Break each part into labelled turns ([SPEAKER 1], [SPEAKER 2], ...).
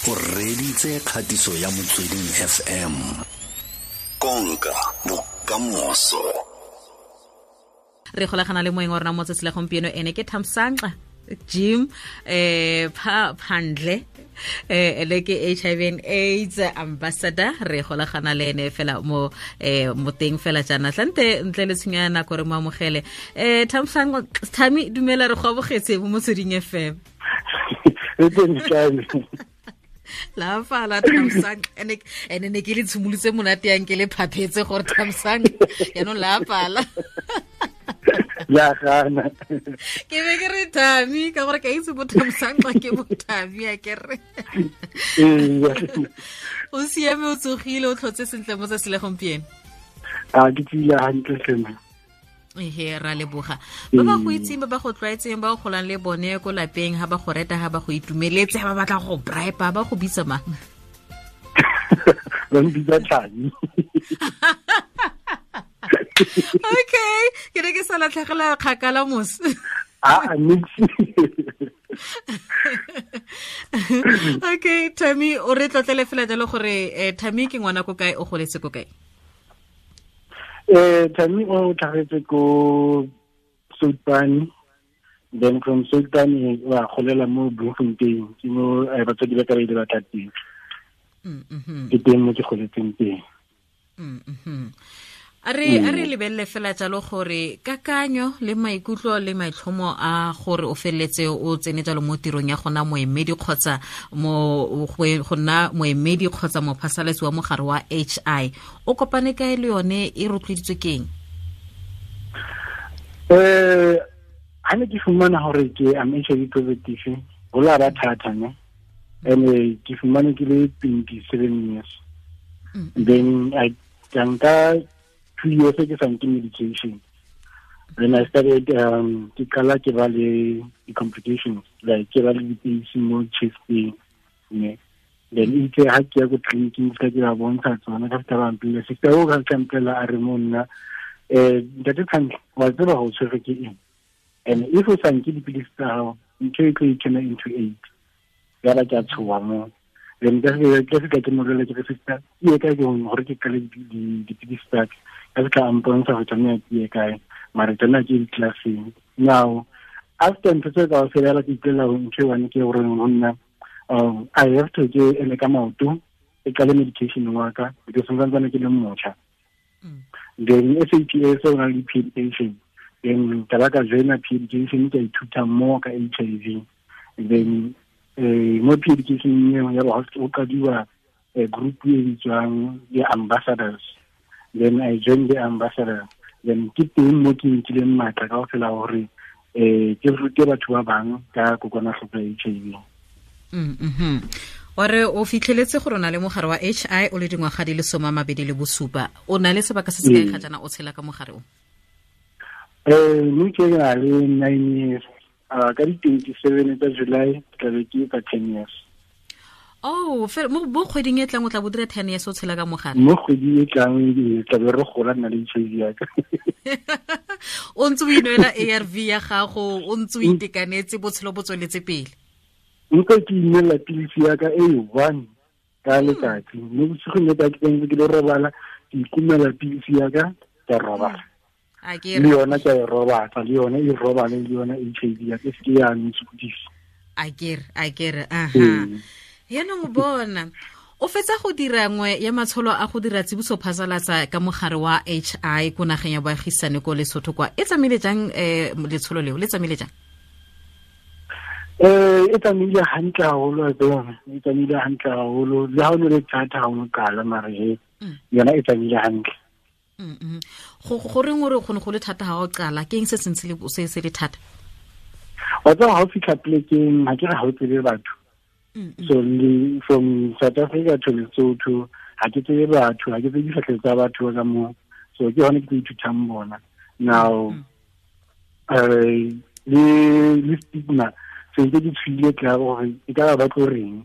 [SPEAKER 1] O reditse kgatiso ya Motsweding FM. Konka bokamoso.
[SPEAKER 2] Re golagana le moeng wa rona mo tsatsi la gompieno, ene ke Thamsanqa Jim pha Phandle, ene ke HIV and AIDS ambassador. Re golagana le ene fela mo mo teng fela jaana tlante ntle le tshenyo ya nako re mo amogele. Thamsanqa Thami, dumela, re go amogetse mo Motsweding FM.
[SPEAKER 3] E teng kae?
[SPEAKER 2] La fala Thamsanqa, ene ne ke le tshimolotse monate yang ke le phaphetse gore Thamsanqa yaanong la fala.
[SPEAKER 3] Ya gana.
[SPEAKER 2] Ke be ke re Thami ka gore ka itse bo Thamsanqa ke bo Thami, a ke re o siame, o tsogile, o tlhotse sentle mo tsatsi la gompieno?
[SPEAKER 3] A ke tsile hantle sena.
[SPEAKER 2] Ehe, ra leboga. Ba ba go itseng, ba ba go tlwaetseng, ba o golang le bone ko lapeng, ha ba go reta, ha ba go itumeletse, ha ba batla go bribe, ba go bitsa mang?
[SPEAKER 3] Ba mpitsa Thami.
[SPEAKER 2] Okay, ke ne ke sa latlhegela kgakala mos.
[SPEAKER 3] A nix.
[SPEAKER 2] Okay, Thami, o re tlotlele fela jalo gore Thami ke ngwana ko kae, o goletse ko kae?
[SPEAKER 3] Thami o tlhagetse ko Soutpane, then from Soutpane wa golela mo Bloemfontein, ke mo batsadi ba ka ba ile ba tla teng. Ke teng mo ke goletseng teng.
[SPEAKER 2] A re lebelele fela jalo gore kakanyo le maikutlo le maitlhomo a gore o feleletse o tsene jalo mo tirong ya gona moemedi kgotsa mo go nna moemedi kgotsa mophasalatsi wa mogare wa HI, o kopane kae le yone, e rotloeditswe ke eng?
[SPEAKER 3] Ha ne ke fumana hore ke am HIV positive, ho la ba thata ne, and ke fumane ke le 27 years. Then I ka nka 2 years ke sa nke medication. Then I started ke qala ke ba le di-complications, like ke ba le dipilisi mo chesteng ne. Then itse ha ke ya ko tleliniking, ka ke ba bontsha tsona, ka fitlha ba mpolella, sister o ka fitlha mpolelela a re mo nna, "Ntate Thantle, wa tseba go tshwerwe ke eng, and if o sa nke dipilisi tsa gago, ntho e tlo e turn into AIDS." Yaba ke a tshoa mo. Then ka fitlha ke molela, ke re, "Sister, ke ye kae ke gore ke qale dipilisi tsa ka?" Ka fitlha a mpontsha go tsamaya ke ye kae, mare tsamaya ke di-classeng. Now after ntho tse ka fela, ke ipolela ntho e one ke gore go nna I have to ke eme ka maoto, ke qale medication wa ka, because santsane ke le motjha. Then SAPS o na le pre-education, then ka ba ka joina pre-education, ka ithuta more ka HIV. Then mo pre-education eo ya ba o qadiwa group e bitswang the ambassadors. Then I joined the ambassador. Then ke teng mo ke nkileng matla ka fela hore ke rute batho ba bang ka kokwanahloko ya HIV.
[SPEAKER 2] Wa re o fitlheletse gore o na le mogare wa HI o le dingwaga di le 27. O na le sebaka se se kae ga jaana o tshela ka mogare o?
[SPEAKER 3] Mme ke na le 9 years. Ka di 27 tsa July ke tla be ke etsa 10 years.
[SPEAKER 2] Oh, mo kgweding e tlang o tla bo dira 10 years o tshela ka mogare?
[SPEAKER 3] Mo kgweding e tlang tla be re gola nna le HIV ya ka.
[SPEAKER 2] O ntse o inwela ARV ya gago, o ntse o itekanetse, botshelo bo tsweletse pele?
[SPEAKER 3] Nka ke inela pilisi ya ka e one ka letsatsi. Mo bosigong le ka ke ntse ke le robala, ke ikumela pilisi ya ka, ka robala. Le yona ke a e robatsa, le yone e robale le yona HIV ya ka, e seke ya ntshokodisa.
[SPEAKER 2] A kere aha, yaanong bona o fetsa go dira nngwe ya matsholo a go dira tsibuso phasalatsa ka mogare wa HI ko nageng ya boagisane ko Lesotho kwa. E tsamaile jang letsholo leo, le tsamaile jang?
[SPEAKER 3] E tsamaile hantle haholo a tsona, e tsamaile hantle haholo, le ha o ne le thata ha o qala, mare he yona e tsamaile hantle.
[SPEAKER 2] Go reng o re go ne go le thata ha o qala? Ke eng se sentse se se le thata?
[SPEAKER 3] Wa tseba, ha o fitlha plekeng, ha ke re ha o tsebe batho. So le from South Africa to Lesotho, ha ke tsebe batho, ha ke tsebe difatlhego tsa batho ka moo, so ke hone ke tlo ithutang bona now. Le stigma se ntse ke tshwile tla gore e ka ba ba tlo reng,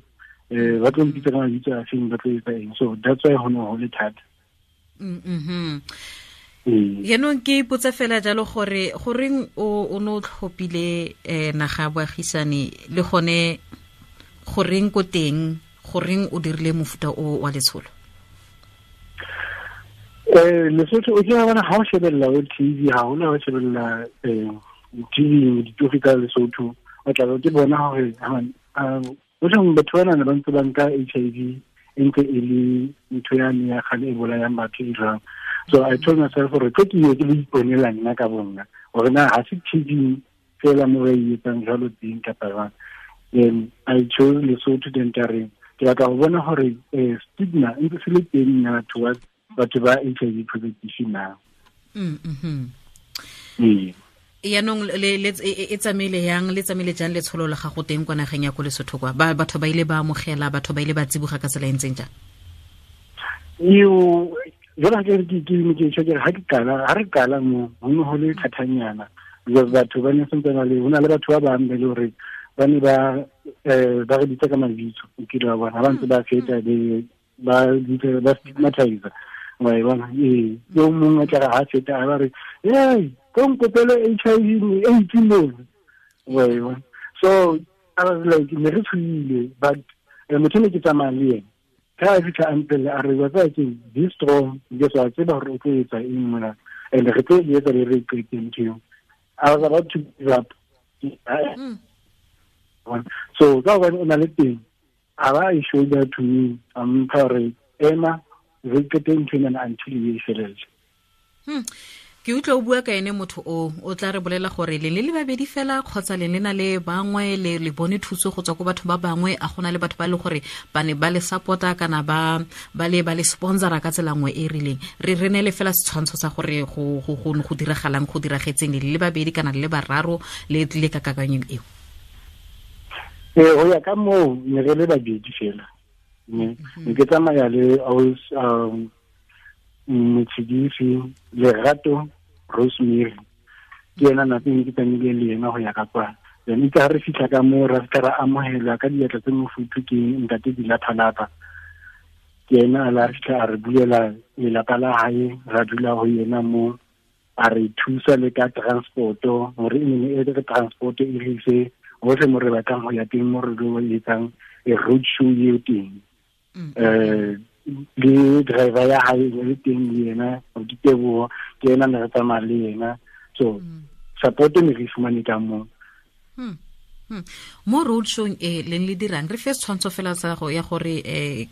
[SPEAKER 3] ba tlo mpitsa ka mabitso a feng, ba tlo etsa eng. So that's why ho ne ho le thata.
[SPEAKER 2] Yaanong ke ipotsa fela jalo gore goreng o ne o tlhophile naga ya boagisane, le gone goreng ko teng Goreng o dirile mofuta o wa letsholo?
[SPEAKER 3] Lesotho o kile bona ha o shebella o TV, ha hona o shebella TV ditori ka Lesotho, o tla ke bona hore o batho bana ne ba ntse ba nka HIV e ntse e le ntho yane ya kgale e bolayang batho e jwang. So I told myself gore tlo ke ye ke lo iponela nna ka bonna gore na ha se TV fela mo re e etsang jwalo teng kapa jwang. Then I chose Lesotho, then ka re ke batla go bona gore stigma e ntse se le teng na towards batho ba HIV positive na.
[SPEAKER 2] Yaanong e tsamaile yang, le tsamaile jang letsholo la gago teng kwa nageng ya ko Lesotho kwa? Batho ba ile ba amogela, batho ba ile ba tsiboga ka tsela e ntseng jang?
[SPEAKER 3] Eo jalo ke ke ke ke ha ke qala, ha re qala mo ho ne ho le thatanyana, because batho ba ne sentse ba le, ho na le batho ba bang ba le hore ba ne ba ba re bitsa ka mabitso, o kile wa bona ba ntse ba feta ba bitsa ba stigmatize, wa e bona. Ee, yo mongwe a tla re ha feta a ba re, hey, ko nkopele HIV AIDS mo, wa e bona. So I was like, ne re tshohile, but motho ne ke tsamaya le yena ka a fitlha a mpelle a re, wa tseba keng, be strong, because wa tseba gore o tlo etsa eng mona, and re tlo e etsa le re qete ntho eo. I was about to give up. So ka hobane o na le teng, a ba e shoulder to me, a mpha gore ema re qete ntho ena until e felele.
[SPEAKER 2] Ke utlwa o bua ka ene motho o tla re bolela gore le le babedi fela kgotsa le le na le bangwe, le bone thuso go tswa ko batho ba bangwe, a gona le batho ba le gore ba ne ba le support-a kana ba le sponsora ka tsela nngwe e rileng. Re ne le fela setshwantsho sa gore go go diragalang, go diragetseng le le babedi kana le bararo le tlile ka kakanyong eo.
[SPEAKER 3] Go ya ka moo ne re le babedi fela. Ne ke tsamaya le Motshedisi Lerato Rosemary, ke ena nako e ke tsamaile le yena go ya ka kwa. Then itse ha re fitlha ka moo, ra fitlha ra amohelwa ka diatla tse mofuthu ke ntate Dilathalapa. Ke ena a la fitlha a re bulela lelapa la hae, ra dula ho yena mo, a re thusa le ka transport-o, hore e ne e re transport e re ise hohle mo re batlang ho ya teng, mo re lo etsang e road show eo teng. Le driver ya hae e le teng le yena, Diteboho, ke yena ne re tsamaya le yena. So support ne re fumane ka moo.
[SPEAKER 2] Mo road showng e leng le dirang, re fe setshwantsho fela sa go ya gore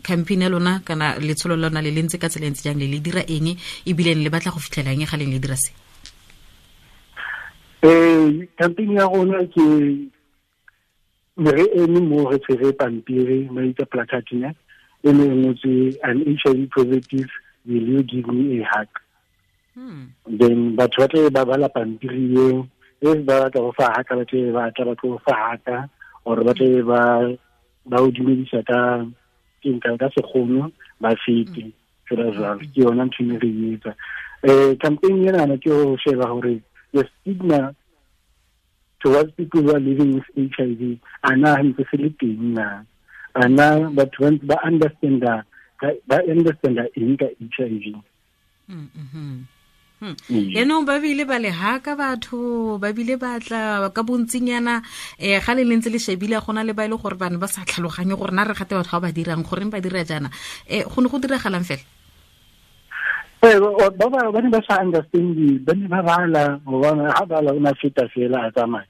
[SPEAKER 2] campaign ya lona kana letsholo la lona le le ntse ka tsela e ntse jang, le le dira eng, ebile le batla go fitlhela eng ga leng le dira se?
[SPEAKER 3] Campaign ya rona ke ne re eme mo re tshwere pampiri, ba itse placard ne, e ne e ngotswe, an HIV positive, will you give me a hug? Then batho ba tle ba bala pampiri eo, if ba batla go fa haka, ba tle ba tla ba tlo fa haka, or ba tle ba o dumedisa ka ka sekgono, ba fete fela jwalo. Ke yona ntho e re e etsa. Campaign ena ke ho sheba hore the stigma towards people who are living with HIV, ana ntse se le teng na, ana batho ba understand-a eng ka HIV.
[SPEAKER 2] Yaanong ba bile ba le haka batho, ba bile ba tla ka bontsinyana, ga le ntse le shebile gona le ba ile gore bana ba sa tlhaloganye gore na re gate batho ba ba dirang, goreng ba dira jaana. Go ne go diragalang fela?
[SPEAKER 3] Ba ne ba sa understand, ba ne ba bala, gobane ha bala o na feta fela a tsamaya.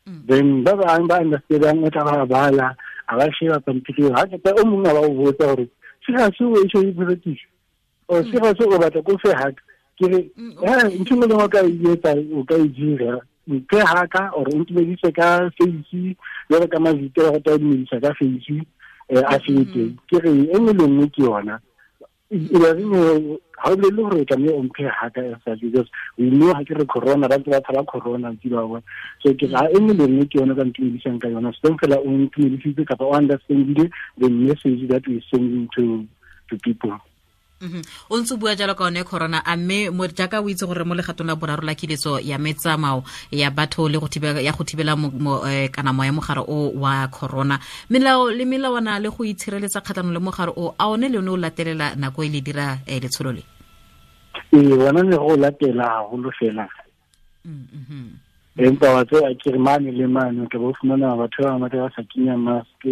[SPEAKER 3] Then ba bang ba understand, o tla ba bala, a ba sheba pampiri, ha ke o mongwe a ba o botsa gore se ga se o HIV positive, o se ga se o batla ko fe haka. Ke re, ntho e lengwe o ka e etsa, o ka e dira, mphe haka or o ntumedise ka face, jalo ka mavito a go tla dumedisa ka face, a fete. Ke re, e nngwe le nngwe ke yona. Ha o bolele gore o tlameha o mphe haka as such, because we know ha ke re corona, ba ntse ba tshaba corona, ntse ba bona. So ke re, e nngwe le nngwe ke yona ka ntumedisang ka yona. So fela o ntumedisitse kapa o understandile the message that we sending to people.
[SPEAKER 2] O ntse bua jalo ka one corona, a mme mo jaaka o itse gore mo legatong la boraro la kiletso ya metsamao ya batho le go thibela ya go thibela kana moya mogare o wa corona, melao le melawana le go itshireletsa kgatlhanong le mogare o, a one le one o latelela nako e le dira letsholo le?
[SPEAKER 3] Ee, bona ne go latela haholo fela. Empa wa tseba ke re mane le mane o tla bo fumana batho ba bangata ba sa kenya mask,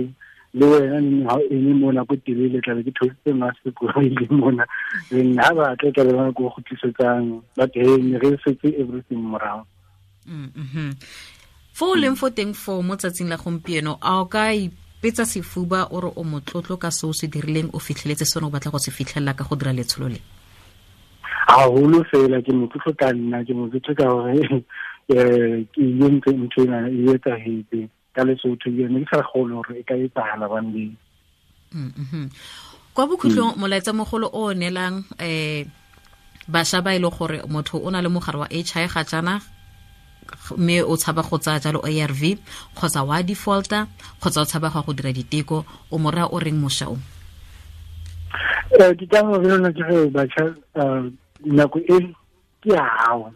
[SPEAKER 3] Le wena neng ha o eme mona ko telele, tlabe ke theositse mask ko ile mona, then ha ba tla tlabe ba ko kgutlisetsang, but hey, ne re setse everything morago.
[SPEAKER 2] Fo o leng fo teng fo mo tsatsing la gompieno, a o ka ipetsa sefuba o re o motlotlo ka se o se dirileng, o fitlheletse sone o batla go se fitlhelela ka go dira letsholo le?
[SPEAKER 3] Haholo fela ke motlotlo ka nna, ke motlotlo ka gore ke entse ntho ena e etsahetse ka Lesotho, ne ke sa kgone hore e ka etsahala one day.
[SPEAKER 2] Kwa bokhutlong, molaetsa mogolo o neelang bašwa ba e le gore motho o na le mogare wa HIV ga jaana, mme o tshaba go tsaya jalo ARV kgotsa wa defaulta kgotsa o tshaba go dira diteko, o mo raya o reng mošwa o?
[SPEAKER 3] Ke ka gore yona ke re batjha, nako e ke ya hao.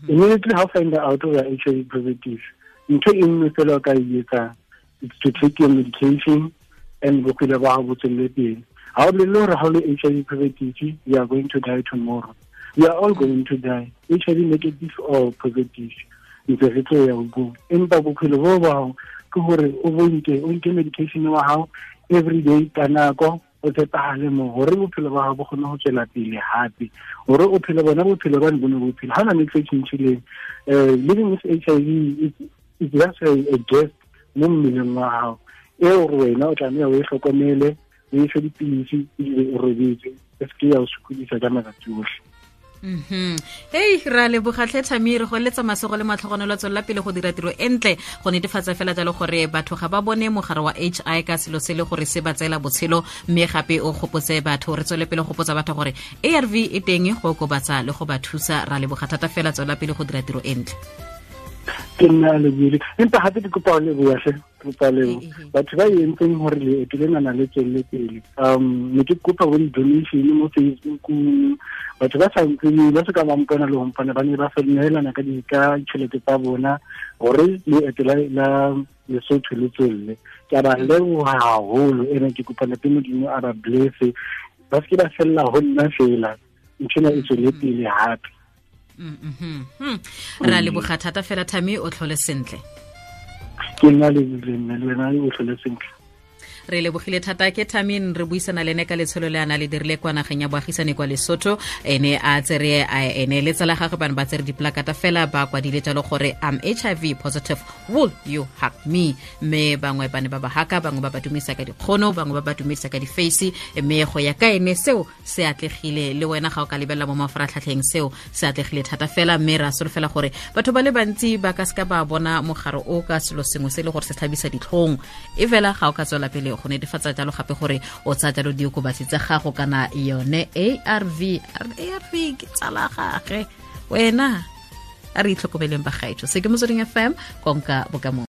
[SPEAKER 3] Immediately ha o find out o ya HIV positive, ntho e nngwe fela o ka e etsang, it's to take your medication and bophelo ba hao bo tswelle pele. Ha o bolelle hore ha o le HIV positive you are going to die tomorrow. We are all going to die, HIV negative or positive, ntse re tlo ya go. Empa bophelo bo ba hao ke hore o bonke, o nke medication wa hao every day ka nako, o tshepahale mo hore bophelo ba hao bo kgone ho tswela pele hape, hore o phele bona bophelo ba ne bo ne bophelo. Ha ona ntho e tjhentjhileng. Living with HIV is just a guest mo mmeleng wa hao, eo gore wena o tlameha o e hlokomele, o e fe dipilisi ebile o robetse, e se ke ya o sokodisa ka matsatsi ohle.
[SPEAKER 2] Hei, ra leboga tlhe Thami, re go eletsa masego le matlhogonolo, a tswelela pele go dira tiro e ntle go netefatsa fela jalo gore batho ga ba bone mogare wa HI ka selo se le gore se ba tseela botshelo, mme gape o gopotse batho, re tswele pele go gopotsa batho gore ARV e teng go okobatsa le go ba thusa. Ra leboga thata fela, tswelela pele go dira tiro e ntle.
[SPEAKER 3] Ke nna lebile, empa gape ke kopa o leboga hle, ke kopa lebo batho ba entseng gore leeto lenana le tswelele pele. Ne ke kopa bo di-donation mo Facebook, batho ba sa ntseng ba se ka ba mpona le ho mpona, ba ne ba neelana ka ditšhelete tsa bona gore leeto la Lesotho le tswelle. Ke a ba leboha haholo, ene ke kopa Ntate Modimo a ba blesse, ba se ke ba fella ho nna fela, ntho ena e tswelle pele hape.
[SPEAKER 2] Ra leboga thata fela Thami, o tlhole sentle.
[SPEAKER 3] Ke nna le nna le wena, o tlhole sentle.
[SPEAKER 2] Re lebogile thata. Ke Thamin, re buisana le ene ka letsholo le a na le dirile kwa nageng ya boagisane kwa Lesotho. Ene a tsere ene le tsala gagwe bane ba tsere diplakata fela, ba kwadile jalo gore am HIV positive, will you hug me? Mme bangwe ba ne ba ba haka, bangwe ba ba dumedisa ka dikgono, bangwe ba ba dumedisa ka di-face, mme go ya ka ene seo se atlegile. Le wena ga o ka lebelela mo mafaratlhatlheng, seo se atlegile thata fela, mme ra solofela gore batho ba le bantsi ba ka seka ba bona mogare o ka selo sengwe se e le gore se tlhabisa ditlhong, e fela ga o ka tswela pele go netefatsa jalo gape gore o tsaya jalo diokobatsi tsa gago kana yone ARV. ARV ke tsala gage wena. A re itlhokomeleng bagaetsho. Se ke Motsweding FM, konka bokamoso.